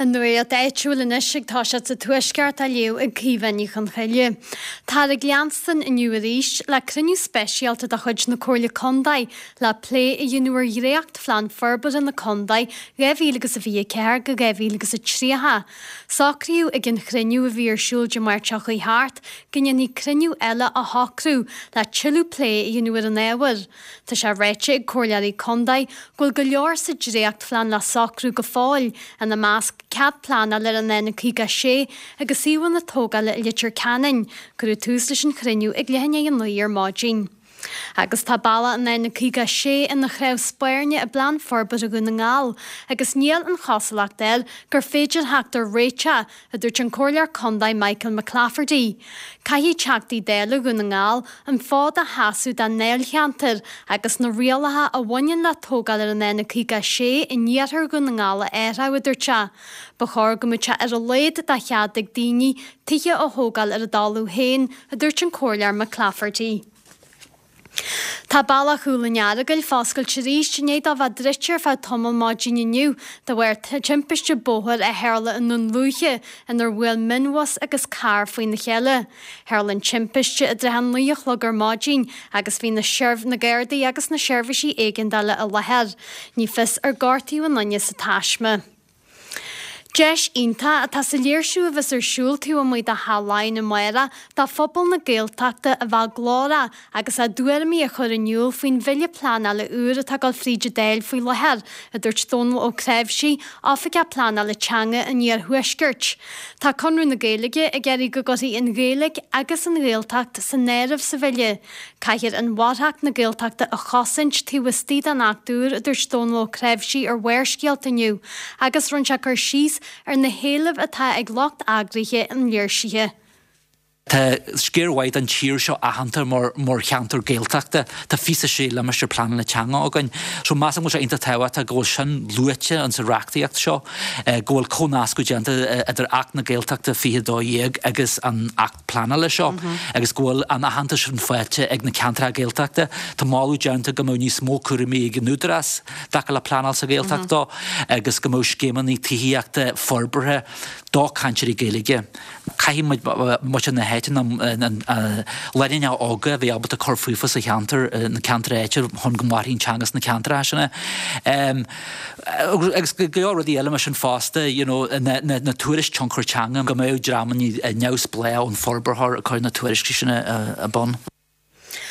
An nuacht áitiúil anois ag toiseacht sa Tuaisceart á léamh ag Caoimhe Ní Chonchoille. Táthar ag leanstan inniu arís le cruinniú speisialta de chuid na Comhairle Contae le plé a dhéanamh ar dhréacht-phlean forbartha na contae 2024-2030. Socraíodh ag an chruinniú a bhí ar siúl Dé Máirt seo chuaigh thart go ndéanfaí cruinniú eile a shocrú le tuilleadh plé a dhéanamh ar an ábhar. Tá sé ráite ag comhairleoirí contae go bhfuil go leor sa dréachtphlean le socrú go fóill, ina measc cead pleanála ar an N56 agus suíomhanna tógála i Leitir Ceanainn. Cuireadh tús leis an chruinniú ag leath i ndiaidh a 9 ar maidin. Agus tá bealach an N56 ina chnámh spairne i bPlean Forbartha Dhún na nGall agus níl an chosúlacht air gur féidir theacht ar réiteach a dúirt an Comhairleoir Contae Michael McClafferty. Caithfidh Teachtaí Dála Dhún na nGall an fód a sheasamh dá ndáilcheantar agus na rialacha a bhaineann le tógáil ar an N56 in iarthar Dhún na nGall a athrú, a dúirt sé. Ba chóir go mbeadh sé ar a laghad de chead ag daoine tithe a thógáil ar a dtalamh féin, a dúirt an Comhairleoir McClafferty. Tá bealach Chúil an Earagail foscailte arís i ndiaidh dó bheith druidte ar feadh tamaill maidin inniu de bharr timpiste bóthair a tharla i nDún Lúiche inar bhuail mionbhus agus carr faoina chéile. Tharla an timpiste i dtrátha a 9 a chlog ar maidin agus bhí na na Gardaí agus na seirbhísí éigeandála i láthair. Ní fios ar gortaíodh aon duine sa taisme. Deis iontach atá sa léirsiú a bheas ar siúl taobh amuigh de Theach Laighean amárach do phobal na Gaeltachta a bheith glórach agus a dtuairimí a chur in iúl faoin bhille pleanála úr atá ag dul fríd an Dáil faoi láthair, a dúirt Dónal Ó Cnáimhsí, Oifigeach Pleanála Teanga an Iarthuaiscirt. Tá Conradh na Gaeilge ag iarraidh go gcuirfí an Ghaeilge agus an Ghaeltacht san áireamh sa bhille. Caithfear inmharthanacht na Gaeltachta a chosaint taobh istigh den Acht úr, a dúirt Dónal Ó Cnáimhsí ar Bharrscéalta inniu agus rinne sé cur síos ar na héilimh atá ag lucht eagraithe an léirsithe. Tá sciar mhaith den tír seo aitheanta mar cheantar Gaeltachta. Tá 26 limistéar pleanála teanga againn. So measaim go bhfuil sé iontach tábhachtach go bhfuil sin luaite in sa reachtaíocht seo, go bhfuil comhnascadh déanta idir Acht na Gaeltachta 2012 agus an Acht pleanála seo agus go bhfuil an aitheantas sin faighte ag na ceantracha Gaeltachta. Tá moladh déanta go mbeadh níos mó cúraimí ag an Údarás i dtaca le pleanáil sa Ghaeltacht dó agus go mbeadh scéimeanna tithíochta forbartha do cainteoirí Gaeilge. Caithfidh muid muintir na háite, na lánúineacha óga a bheith ábalta cur fúthu sa cheantar, na ceantair áitiúil chun go mairfidh an teanga sna ceantracha sin. Agus go leor rudaí eile mar sin fosta, you know, na tuairisc tionchar teanga, go mbeadh dreamanna neamhspleách ón forbróir ag cur na tuairiscí sin ar bun.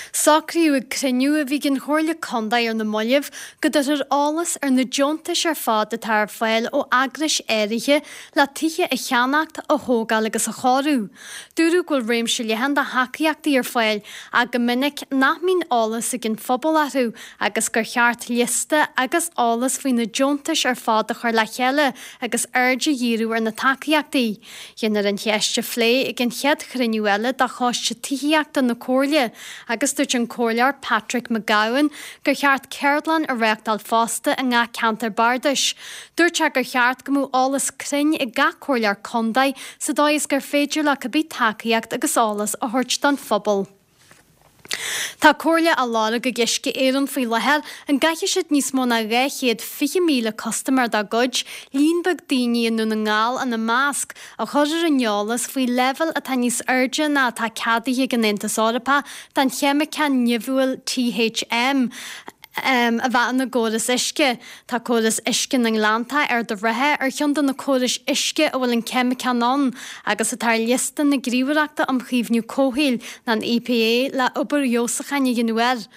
Socraíodh ag cruinniú a bhí ag an Chomhairle Contae ar na mallaibh go dtabharfar eolas ar na deontais ar fad atá ar fáil ó eagrais áirithe le tithe a cheannacht, a thógáil agus a chóiriú. Dúradh go bhfuil réimse leathan de thacaíochtaí ar fáil ach go minic nach mbíonn eolas ag an phobal orthu agus gur cheart liosta agus eolas faoi na deontais ar fad a chur le chéile agus aird a dhíriú ar na tacaíochtaí. Déanfar an cheist a phlé ag an chéad chruinniú eile de Choiste Tithíochta na Comhairle agus dúirt an Comhairleoir Patrick Mac Gabhann gur cheart ceardlann a réachtáil fosta i ngach ceantar bardais. Dúirt sé gur cheart go mbeadh eolas cruinn ag gach comhairleoir contae sa dóigh is gur féidir leo cibé tacaíocht agus eolas a thabhairt don phobal. Tá comhairle á lorg ag Uisce Éireann faoi láthair an gcaithfidh siad níos mó ná 220,000 custaiméir dá gcuid, líon beag daoine i nDún na nGall ina measc, a chur ar an eolas faoi leibhéil atá níos airde ná atá ceadaithe ag an Aontas Eorpach den cheimiceán nimhiúil THM a bheith ina gcóras uisce. Tá córas uisce na nGleanntach, Ard an Rátha, ar cheann de na córais uisce a bhfuil an ceimiceán ann agus atá ar liosta na Gníomhaireachta um Chaomhnú Comhshaoil, an EPA, le obair fheabhsúcháin a dhéanamh air.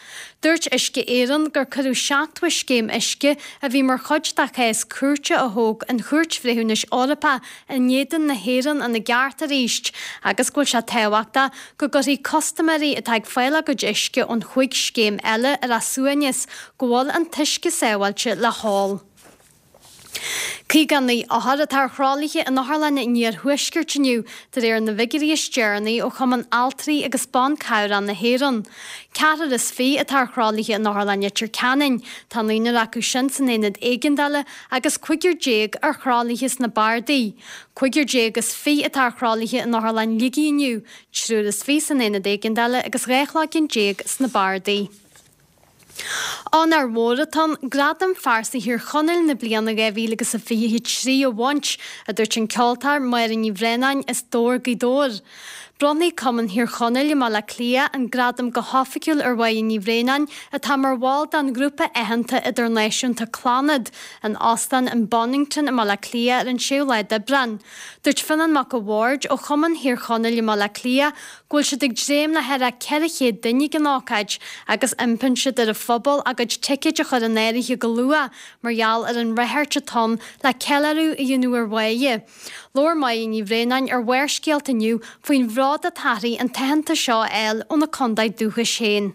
Dúirt Uisce Éireann gur cuireadh 70 scéim uisce a bhí mar chuid de chás cúirte a thóg an Chúirt Bhreithiúnais Eorpach in éadan na hÉireann ina gceart arís agus go bhfuil sé tábhachtach go gcuirfí custaiméirí atá ag fáil a gcuid uisce ón chúig scéim eile ar a suaimhneas go bhfuil an t-uisce sábháilte le hól. 59 othar atá ar thralaithe in otharlanna an iarthuaiscirt inniu, de réir na bhfigiúirí is deireanaí ó Chumann Altraí agus Ban Cabhrach na hÉireann. Ceathrar is fiche atá ar thralaithe in Otharlann Leitir Ceanainn, tá naonúr acu sin san aonad éigeandála agus cúigear déag ar thralaithe sna bardaí. Cúigear déag is fiche atá ar thralaithe in Otharlann Shligigh inniu, triúr is fiche san aonad éigeandála agus 12 chloigeann sna bardaí. Onóir mhór atá ann Gradam Phearsa Thír Chonaill na bliana 2023 a bhaint, a dúirt an ceoltóir Máire Ní Bhraonáin as Dobhar, Gaoth Dobhair. Bronnfaidh Cumann Thír Chonaill i mBaile Átha Cliath an gradam go hoifigiúil ar Mháire Ní Bhraonáin, atá mar bhall den ghrúpa aitheanta idirnáisiúnta Clannad, in Óstán an Bonnington i mBaile Átha Cliath ar an 6ú lá d'Aibreán. Dúirt Fionán Mac a' Bhaird ó Chumann Thír Chonaill i mBaile Átha Cliath go bhfuil siad ag dréim le thar 400 duine ag an ócáid agus impíonn siad ar an phobal a gcuid ticéid a chur in áirithe go luath mar gheall ar an ráchairt atá ann le ceiliúradh a dhéanamh ar Mháire. Labhair Máire Ní Bhraonáin ar Bharrscéalta inniu faoin bhród atá uirthi an t-aitheantas seo a fháil óna contae dúchais féin.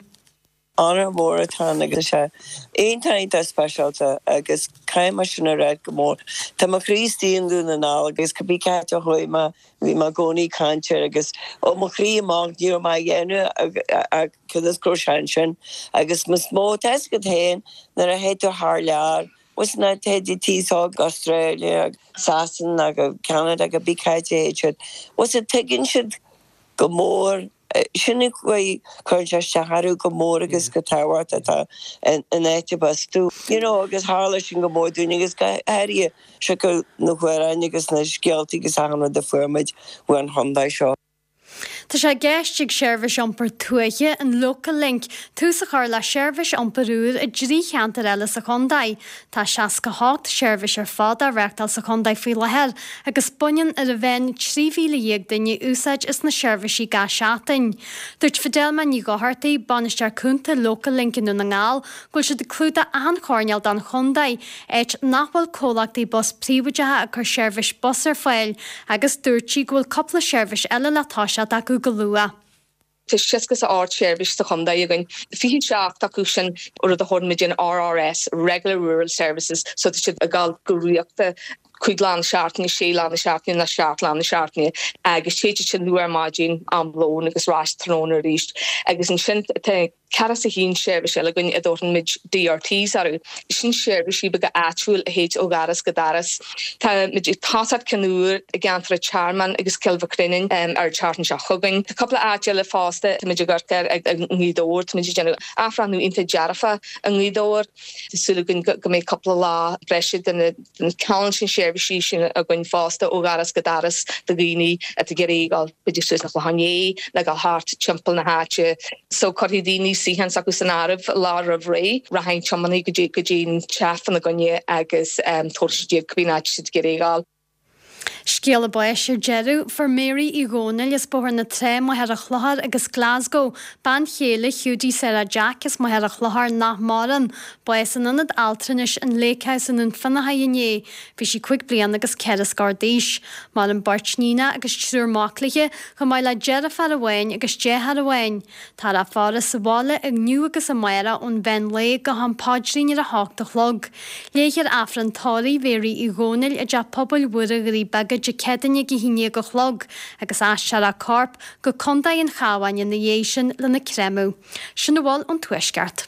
Onóir mhór atá ann agus tá sé iontach iontach speisialta agus caithfidh mé sin a ráit go mór. Tá mo chroí istigh i nDún na nGall agus cibé cá háit a chuaigh mé bhí mé i gcónaí ag caint air agus ó mo chroí amach ní raibh mé á dhéanamh ach cionn is go raibh sé ansin agus is mó tá fhios agat féin nuair a théid tú thar lear bhuel na téid tú go Australia Sasana go Canada cibé cá háit a théid siad bhuel tuigeann siad go mór. Sin an chaoi, cuireann sé isteach orthu go mór agus go tábhachtach atá an áit arb as tú. You know agus tharla sin go mór dúinn agus go háirithe siocair na hamhráin agus na scéaltaí agus achan rud a fuair muid uain chontae seo. Tá sé i gceist ag seirbhís iompair tuaithe, an Local Link, tús a chur le seirbhís iompair úr i dtrí cheantar eile sa chontae. Tá 68 seirbhís ar fad á reáchtáil sa chontae faoi láthair agus baineann ar an mheán 13,000 duine úsáid as na seirbhísí gach seachtain. Dúirt Fidelma Ní Dhochartaigh, Bainisteoir Cúnta Local Link i nDún na nGall, go bhfuil siad ag clúdach achan choirnéal den chontae, áit nach bhfuil comhlachtaí bus príobháideacha ag cur seirbhís bus ar fáil, agus dúirt sí go bhfuil cúpla seirbhís eile le toiseacht acu go luath. Tá 68 seirbhís sa chontae againn, 27 acu sin rud a thabharann muid an RRS, Regular Rural Services, so tá siad ag dul go rialta 5 lá na seachtaine, 6 lá na seachtaine nó 7 lá na seachtaine agus téid siad sin luath ar maidin, am lóin agus ar ais tráthnóna arís. Agus ansin tá 41 seirbhís eile againn a dtabharfaidh muid DRTs orthu. Sin seirbhísí beaga áitiúil a théid ó dhoras go doras. Tá muid ag tosacht ceann úr i gceantar an Tearmainn agus Cill Mhic Réanáin ar an tseachtain seo chugainn. Tá cúpla áit eile fosta, tá muid ag amharc air i nGaoth Dobhair, tá muid ag déanamh athbhreithniú iontach dearfach i nGaoth Dobhair. Tá súil againn go mbeidh cúpla lá breise de na ceann sin seirbhísí sin againn fosta ó dhoras go doras do dhaoine atá ag iarraidh dul b'fhéidir suas an Chlochán Liath nó dul thart timpeall na háite. So cuirfidh daoine suíochán s'acu san áireamh lá roimh ré, rachaidh an tiománaí go dtí go dtí an teach fána gcoinne agus tabharfaidh siad iad cibé áit siad ag iarraidh a dhul. Scéala báis ar deireadh. Fuair Mary Uí Dhónaill as Bóthar na Trá, Machaire Chlochair agus Glasgow, bean chéile Hiúdaí Sarah Jack as Machaire Chlochair nach maireann, bás in Ionad Altranais an Lake House i nDún Fionnachaidh inné. Bhí sí 5 bliana agus 4 scór d'aois. Maireann beirt níonacha agus triúr mac léi, chomh maith le deirfiúr amháin agus deartháir amháin. Táthar á faire sa bhaile inniu agus amárach ón mheán lae go ham paidrín ar a hocht a chlog. Léifear Aifreann tórraimh Mhéaraí Uí Dhónaill i dTeach Pobail Mhuire Dhoirí Beaga Dé Céadaoine ag 11 a chlog agus aistreofar a corp go Contae an Chabháin ina dhiaidh sin lena créamadh. Sin a bhfuil ón Tuaisceart.